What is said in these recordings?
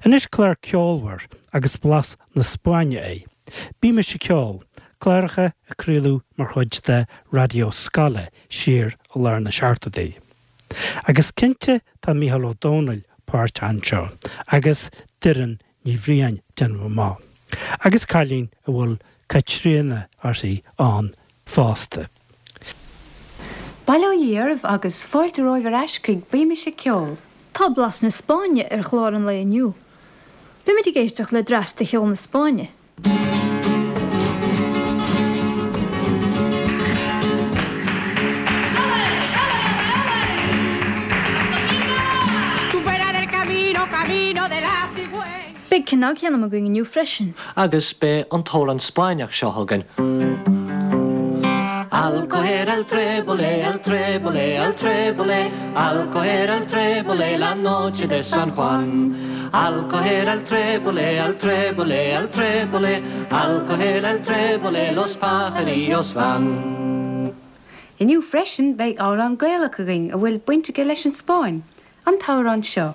Anois clár ceolmhar agus blas na Spáinne é. Bímis ag Ceol, cláracha a craoladh mar chuid de Raidió Scoile siar i lár na seachtóidí. Agus cinnte tá Mícheál Ó Domhnaill páirteach anseo agus Doireann Ní Bhriain, déanaim amach. Agus cailín a bhfuil Caitríona uirthi ann fosta. Bail ó Dhia oraibh agus fáilte romhaibh ar ais chuig Bímis ag Ceol. Tá blas na Spáinne ar chlár an lae inniu. Beimid ag éisteacht le dreas de cheol na Spáinne. Beidh cnagsheanm againn inniu freisin. Agus beidh an t-amhrán Spáinneach seo againn. Al coger el trébole, el trébole, el trébole, al coger el trébole la noche de San Juan. Al coger el trébole, el trébole, el trébole, al coger el trébole los pajarillos van. Inniu freisin beidh amhrán Gaelach againn a bhfuil baint aige leis an Spáinn. An t-amhrán seo.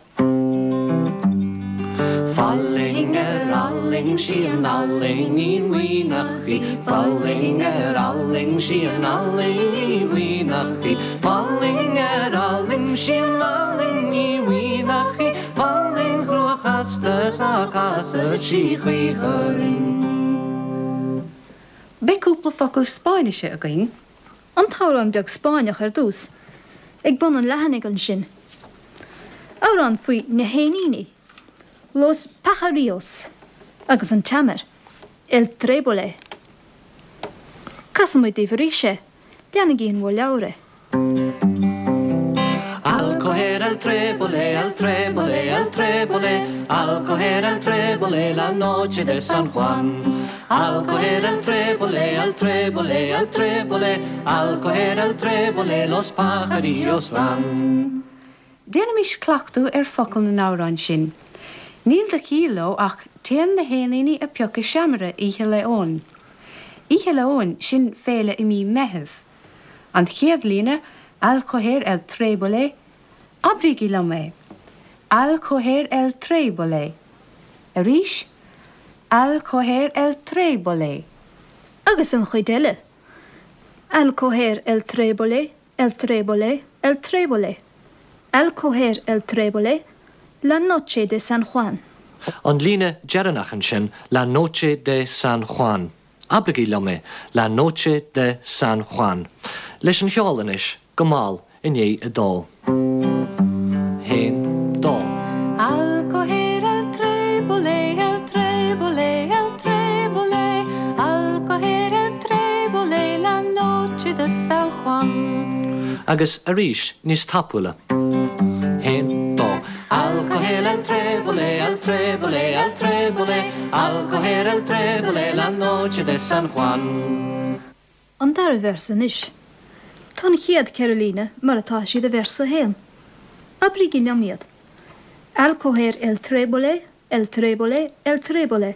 Fallaing ar fhallaing sí an fhallaing mhaoineach í, Fallaing ar fhallaing sí an fhallaing mhaoineach í, Fallaing ar fhallaing sí an fhallaing mhaoineach í, Fallaing chrua chasta 's ná casadh sí choíche orainn. Beidh cúpla focal Spáinnise againn. An t-amhrán beag Spáinneach ar dtús, ag bun an leathanaigh ansin. Amhrán faoi na héiníní, Los Pajarillos, agus an tseamair, El Trébole. Casfaidh muid daoibh arís é, leanaigí in bhur leabhair é. Al coger el trébole, el trébole, el trébole, al coger el trébole la noche de San Juan. Al coger el trébole, el trébole, el trébole, al coger el trébole los pajarillos van. Déanaimis cleachtadh ar focail na n-amhrán sin. Níl de chiall leo ach téann na héiníní a piocadh seamaire Oíche Lae Eoin. Oíche Lae Eoin, sin féile i mí Meithimh. An chéad líne, Al coger el trébole, abraígí liom é. Al coger el trébole. Arís, Al coger el trébole. Agus an chuid eile, Al coger el trébole, el trébole, el trébole. Al coger el trébole, la noche de San Juan. An líne dheireanach ansin, la noche de San Juan. Abraigí liom é, La noche de San Juan. Leis an cheol anois, go mall i ndiaidh a dó. Haon, dó. Al coger el trébole, el trébole, el trébole, al coger el trébole la noche de San Juan. Agus arís, níos tapúla. Haon, dó. Al coger el trébole, el trébole, el trébole, al coger el trébole la noche de San Juan. An dara véarsa anois. Tá an chéad 4 líne mar atá siad i véarsa 1. Abraígí liom iad. Al coger el trébole, el trébole, el trébole,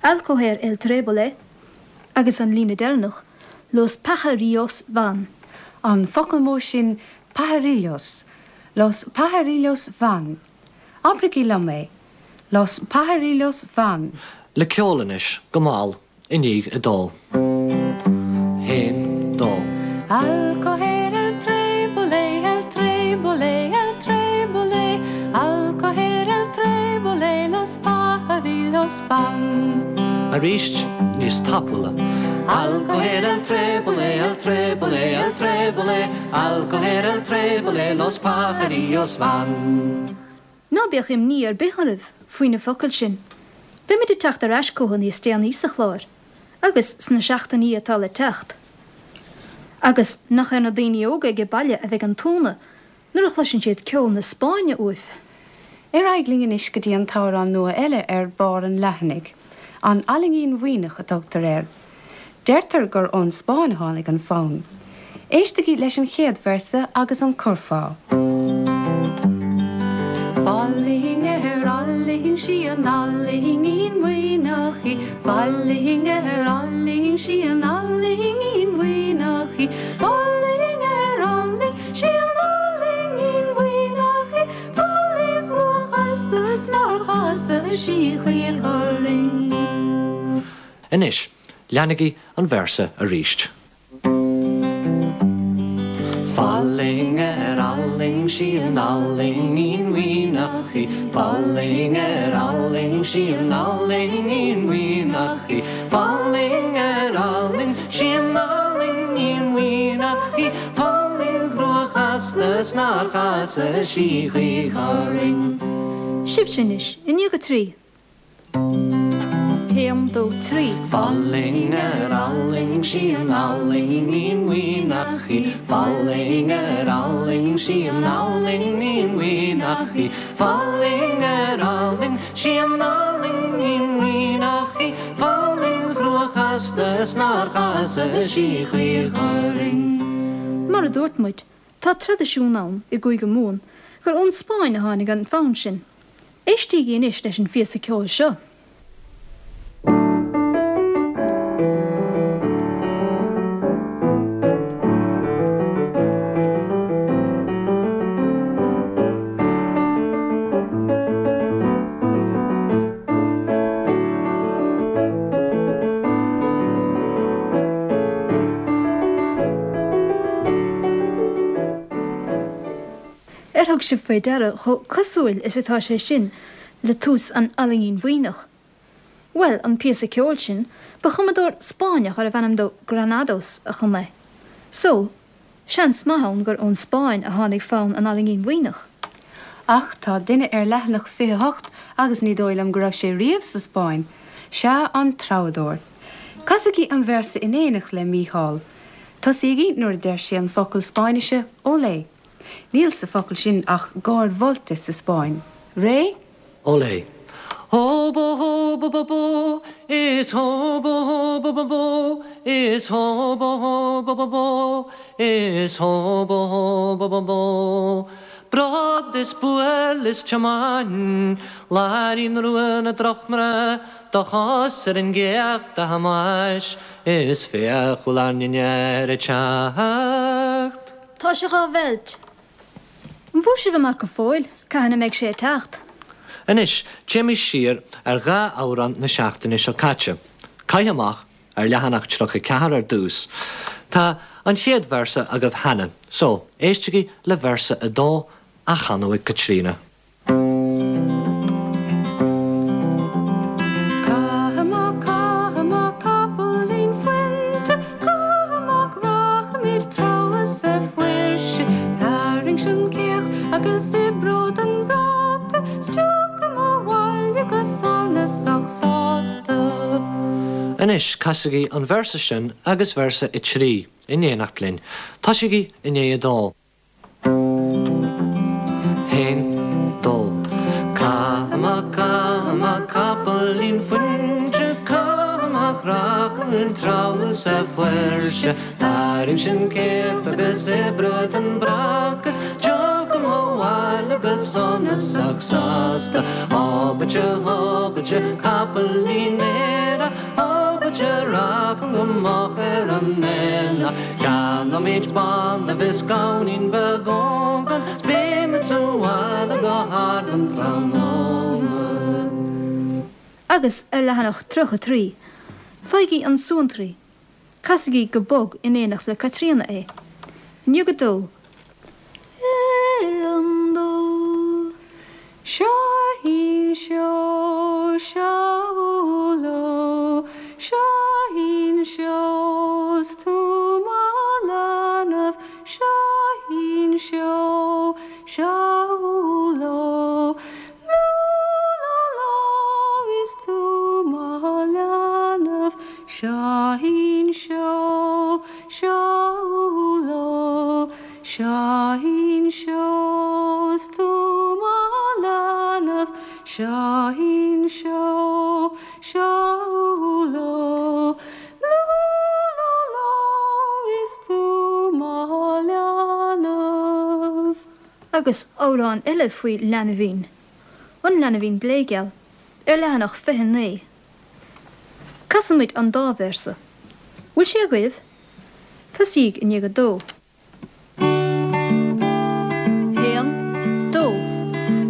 al coger el trébole, agus an líne deireanach, los pajarillos van. An focal mór sin pajarillos, Los pajarillos van. Abraigí liom é. Los pajarillos van. Le ceol anois, go mall, i ndiaidh a dó. Haon, dó. Al coger el trébole, el trébole, el trébole, al coger el trébole los pajarillos van. Arís, níos tapúla. Al coger el trébole, el trébole, el trébole, al coger el trébole los pajarillos van. Ná bíodh imní ar bith oraibh faoi na focail sin. Beimid ag teacht ar ais chucu níos déanaí sa chlár, agus sna seachtainí atá le teacht. Agus nach ar na daoine óga age baile a bheidh an t-ionadh nuair a chloiseann siad ceol na Spáinne uaibh. Ar aghaidh linn anois go dtí an t-amhrán nua eile ar barr an leathanaigh. An Fhallaingín Mhaoineach a tugtar air. Deirtear gur ón Spáinn a tháinig an fonn. Éistigí leis an chéad véarsa agus an curfá. Fallaing ar fhallaing sí an fhallaingín mhaoineach í, Fallaing ar fhallaing sí an fhallaingín mhaoineach í, Fallaing ar fhallaing sí an fhallaingín mhaoineach í, Fallaing chrua chasta 's nár. chasa sí choíche orainn. Anois, leanaigí an véarsa arís. Fallaing ar fhallaing sí an fhallaingín mhaoithneach í, Fallaing ar fhallaing sí an fhallaingín mhaoithneach í, Fallaing ar fhallaing sí an fhallaingín mhaoithneach í, Fallaing chrua chasta 's nár chasa sí choíche orainn. Sibhse anois, i ndiaidh a dtrí. 1, 2, 3. Fallaing ar fhallaing sí an fhallaingín mhaoithneach í, Fallaing ar fhallaing sí an fhallaingín mhaoithneach í, Fallaing ar fhallaing sí an fhallaingín mhaoithneach í, Fallaing chrua chasta 's nár chasa sí choíche orainn. Mar a dúirt muid, tá traidisiún ann i gCúige Mumhan gur ón Spáinn a tháinig an fonn sin. Éistígí anois leis an phíosa ceoil seo. Ar thug sibh faoi deara chomh cosúil is atá sé sin le tús an Fhallaingín Mhaoithneach? Bhuel, an píosa ceoil sin, ba chumadóir Spáinneach arbh ainm dó Granados a chum é. So, seans maith ann gur ón Spáinn a tháinig fonn an Fhallaingín Mhaoithneach. Ach tá duine ar leathanach 28 agus ní dóigh liom go raibh sé riamh sa Spáinn. Sea, an treabhadóir. Casaigí an véarsa in éineacht le Mícheál. Tosaígí nuair a deir sé an focal Spáinnise olé. Níl sa focal sin ach gáir mholta sa Spáinn. Réidh? Olé. Hó bó hó bó bó bó is hó bó hó bó bó bó is hó bó hó bó bó bó is hó bó hó bó bó bó Brod is buail is tiomáin Láirín rua na drochmná Do chos ar an gcéacht a Thomáis is féach bhfuil ár ndinnéar ag teacht. Tá sé dhá mheilt. An bhfuair sibh amach go fóill cathain a mbeidh sé ag teacht? Anois, téimis siar ar dhá amhrán na seachtaine seo caite. Caith Amach, ar leathanach 34 ar dtús. Tá an chéad véarsa agaibh cheana, so, éistigí le véarsa a dó á chanadh ag Caitríona. Caith amach, caith amach, capaillín fuinte, caith amach, rachaimid treabhadh sa bhfuirse. Tarraing an céacht agus oibreod an bráca, 's tiocfam abhaile go sonasach sásta. Anois, casaigí an véarsa sin agus véarsa a 3 in éineacht linn. Tosaígí i ndiaidh a dó. Haon, dó. Caith amach, caith amach, capaillín fuinte, caith amach, rachaimid treabhadh sa bhfuirse. Tarraing an céacht agus oibreod an bráca 's tiocfam abhaile go sonasach sásta. Hobaite, hobaite, capaillín aerach, Hobaite, racham go moch ar an aonach. Ceannóimid banbh is gamhainín beag ógán 's beimid sa bhaile go hard an tráthnóna. Agus ar leathanach 33, faighigí an suantraí. Casaigí go bog in éineacht le Caitríona é. I ndiaidh a dó. Aon, dó. Seoithín seó, seó ló, Seoithín seó, 's tú mo leanbh, Seoithín seó, seó ló, Lú lá lá is tú mo leanbh, Seoithín seó, seó ló, Seoithín seó, 's tú mo leanbh, Seoithín seó, seó ló, Lú lá lá is tú mo leanbh. Agus amhrán eile faoi leanbhín, An Leanbhín Gléigeal, ar leathanach 29. Casfaimid an dá véarsa. Bhfuil sé agaibh? Tosaígí i ndiaidh a dó. Haon, dó.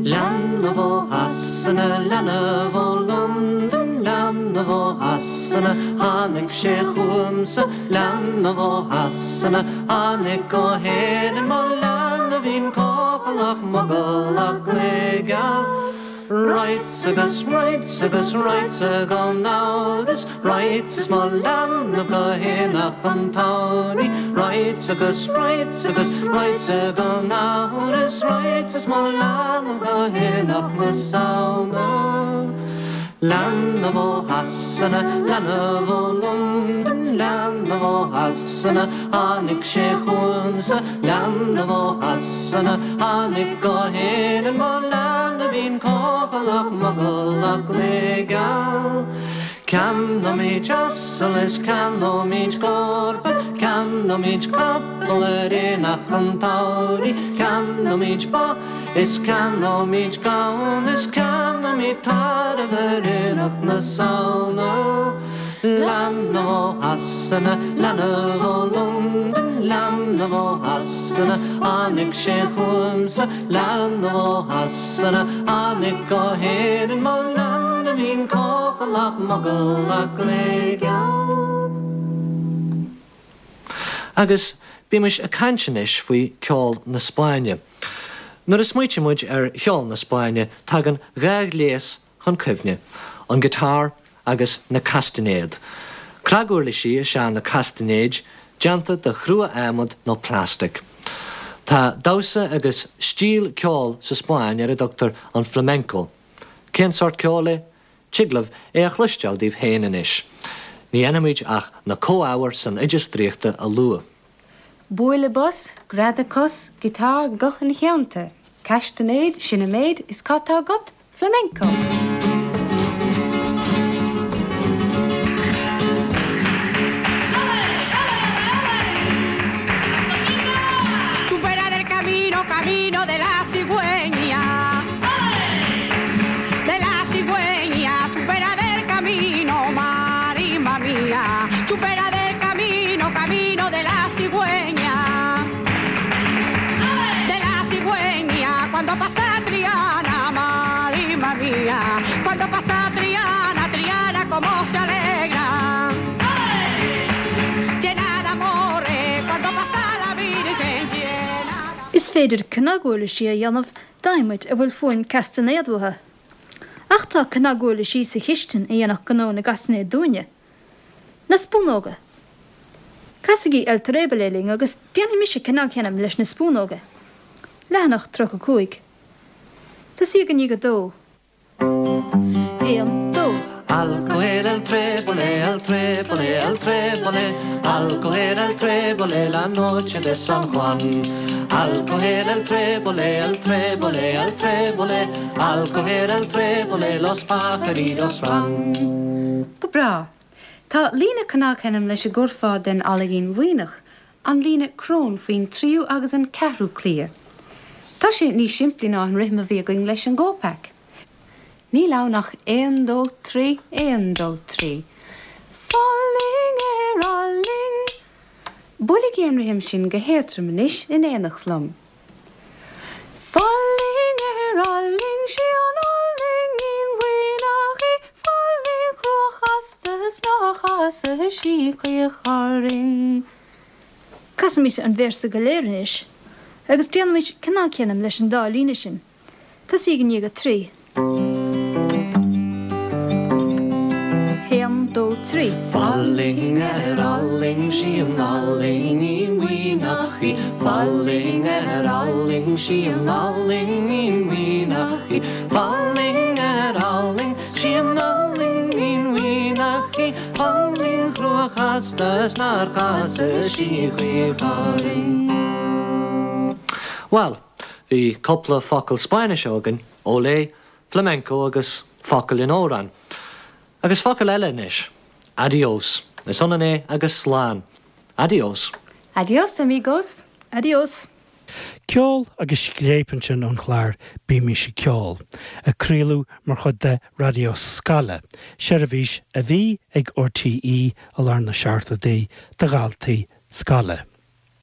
Leanbh ó theas. Shasana, leanbh ó Londain, leanbh ó Shasana, tháinig sé chugamsa, leanbh ó Shasana, tháinig go hÉirinn, mo leanbhín cochallach mogallach gléigeal. Rights agus rights agus rights gan amhras, Rights is mo leanbh go haonach an tsamhraidh, Rights agus rights agus rights gan amhras, Rights is mo leanbh go haonach na Samhna. Leanbh ó Shasana, leanbh ó Londain, leanbh ó Shasana, tháinig sé chugamsa, leanbh ó Shasana, tháinig go hÉirinn, mo leanbhín cochallach mogallach gléigeal. Ceannóimid asal is ceannóimid cárpa, ceannóimid capall ar aonach an tsamhraidh, ceannóimid ba is ceannóimid gamhain is ceannóimid tarbh ar aonach na Samhna. Leanbh ó Shasana, leanbh ó Londain, leanbh ó Shasana, tháinig sé chugamsa, leanbh ó Shasana, tháinig go hÉirinn, mo leanbhín cochallach mogallach gléigeal. Agus bímis ag caint anois faoi ceol na Spáinne. Nuair a smaoitíonn muid ar cheol na Spáinne tagann dhá ghléas chun cuimhne, an guitar agus na castainéid. Cnaguirlisí is ea na castainéid, déanta de chrua-adhmad nó plastic. Tá damhsa agus stíl ceoil sa Spáinn ar a dtugtar an flamenco. Cén sórt ceoil é? Tig libh é a chloisteáil daoibh féin anois. Ní dhéanfaimid ach na comhábhair san oideas draíochta a lua. Bualadh bos, greadadh cos, guitar, guth ina theannta, castainéid, sin an méid, is cad tá agat? Flamenco! Chupera del camino, camino de la cigüeña. De la cigüeña, chupera del camino, marima mía. Chupera del camino, camino de la cigüeña. De la cigüeña, cuando pasa Triana, marima mía. Cuando pasa Triana, Triana como se alegra. Llena de amores, cuando pasa la Virgen llena. Is féidir cnaguirlisí a dhéanamh d'adhmaid a bhfuil fuaim castainéad uathu. Ach tá cnaguirlisí sa chistin a dhéanfadh gnó na gcastainéad dúinne. Na spúnóga. Casaigí El Trébole linn agus déanfaidh mise cnagsheinimis leis na spúnóga. Leathanach 35. Tosaíodh i ndiaidh a dó. 1, 2. Al coger el trébole, el trébole, el trébole, al coger el trébole la noche de San Juan. Al coger el trébole, el trébole, el trébole, al coger el trébole los pajarillos van. Go breá. Tá líne cnagsheinimis leis an gcurfá den Fhallaingín Mhaoineach, an líne crón faoin tríú agus an ceathrú cliath. Tá sé níos simplí ná an rithim a bhí againn leis an gopak. Níl ann ach aon dó trí, aon dó trí. Fallaing ar fhallaing. Buailigí an rithim sin go héadrom anois in éineacht liom. Fallaing ar fhallaing, sí an fhallaingín mhaoineach í, fallaing chrua chasta is nár chasadh sí choích' orainn. Casaimis an véarsa go léir anois agus déanaimis cnagsheinimis leis an dá líne sin. Tosaíg i ndiaidh a trí. 1, 2, 3. Fallaing ar fhallaing, sí an fhallaingín mhaoineach í, Fallaing ar fhallaing, sí an fhallaingín mhaoineach í, Fallaing ar fhallaing, sí an fhallaingín mhaoineach í, Fallaing chrua chasta is nár chasadh sí choích' orainn. Bhuel, bhí cúpla focal Spáinnise againn, olé, flamenco agus focal in amhrán. Agus focal eile anois, adiós. Is ionann é agus slán. Adiós. Adiós, amigos. Adiós. Ceol agus scléip ansin ón chlár Bímís ag Ceol, a craoladh mar chuid de Raidió Scoile, seirbhís a bhí ag RTÉ i lár na seachtóidí do dhaltaí scoile.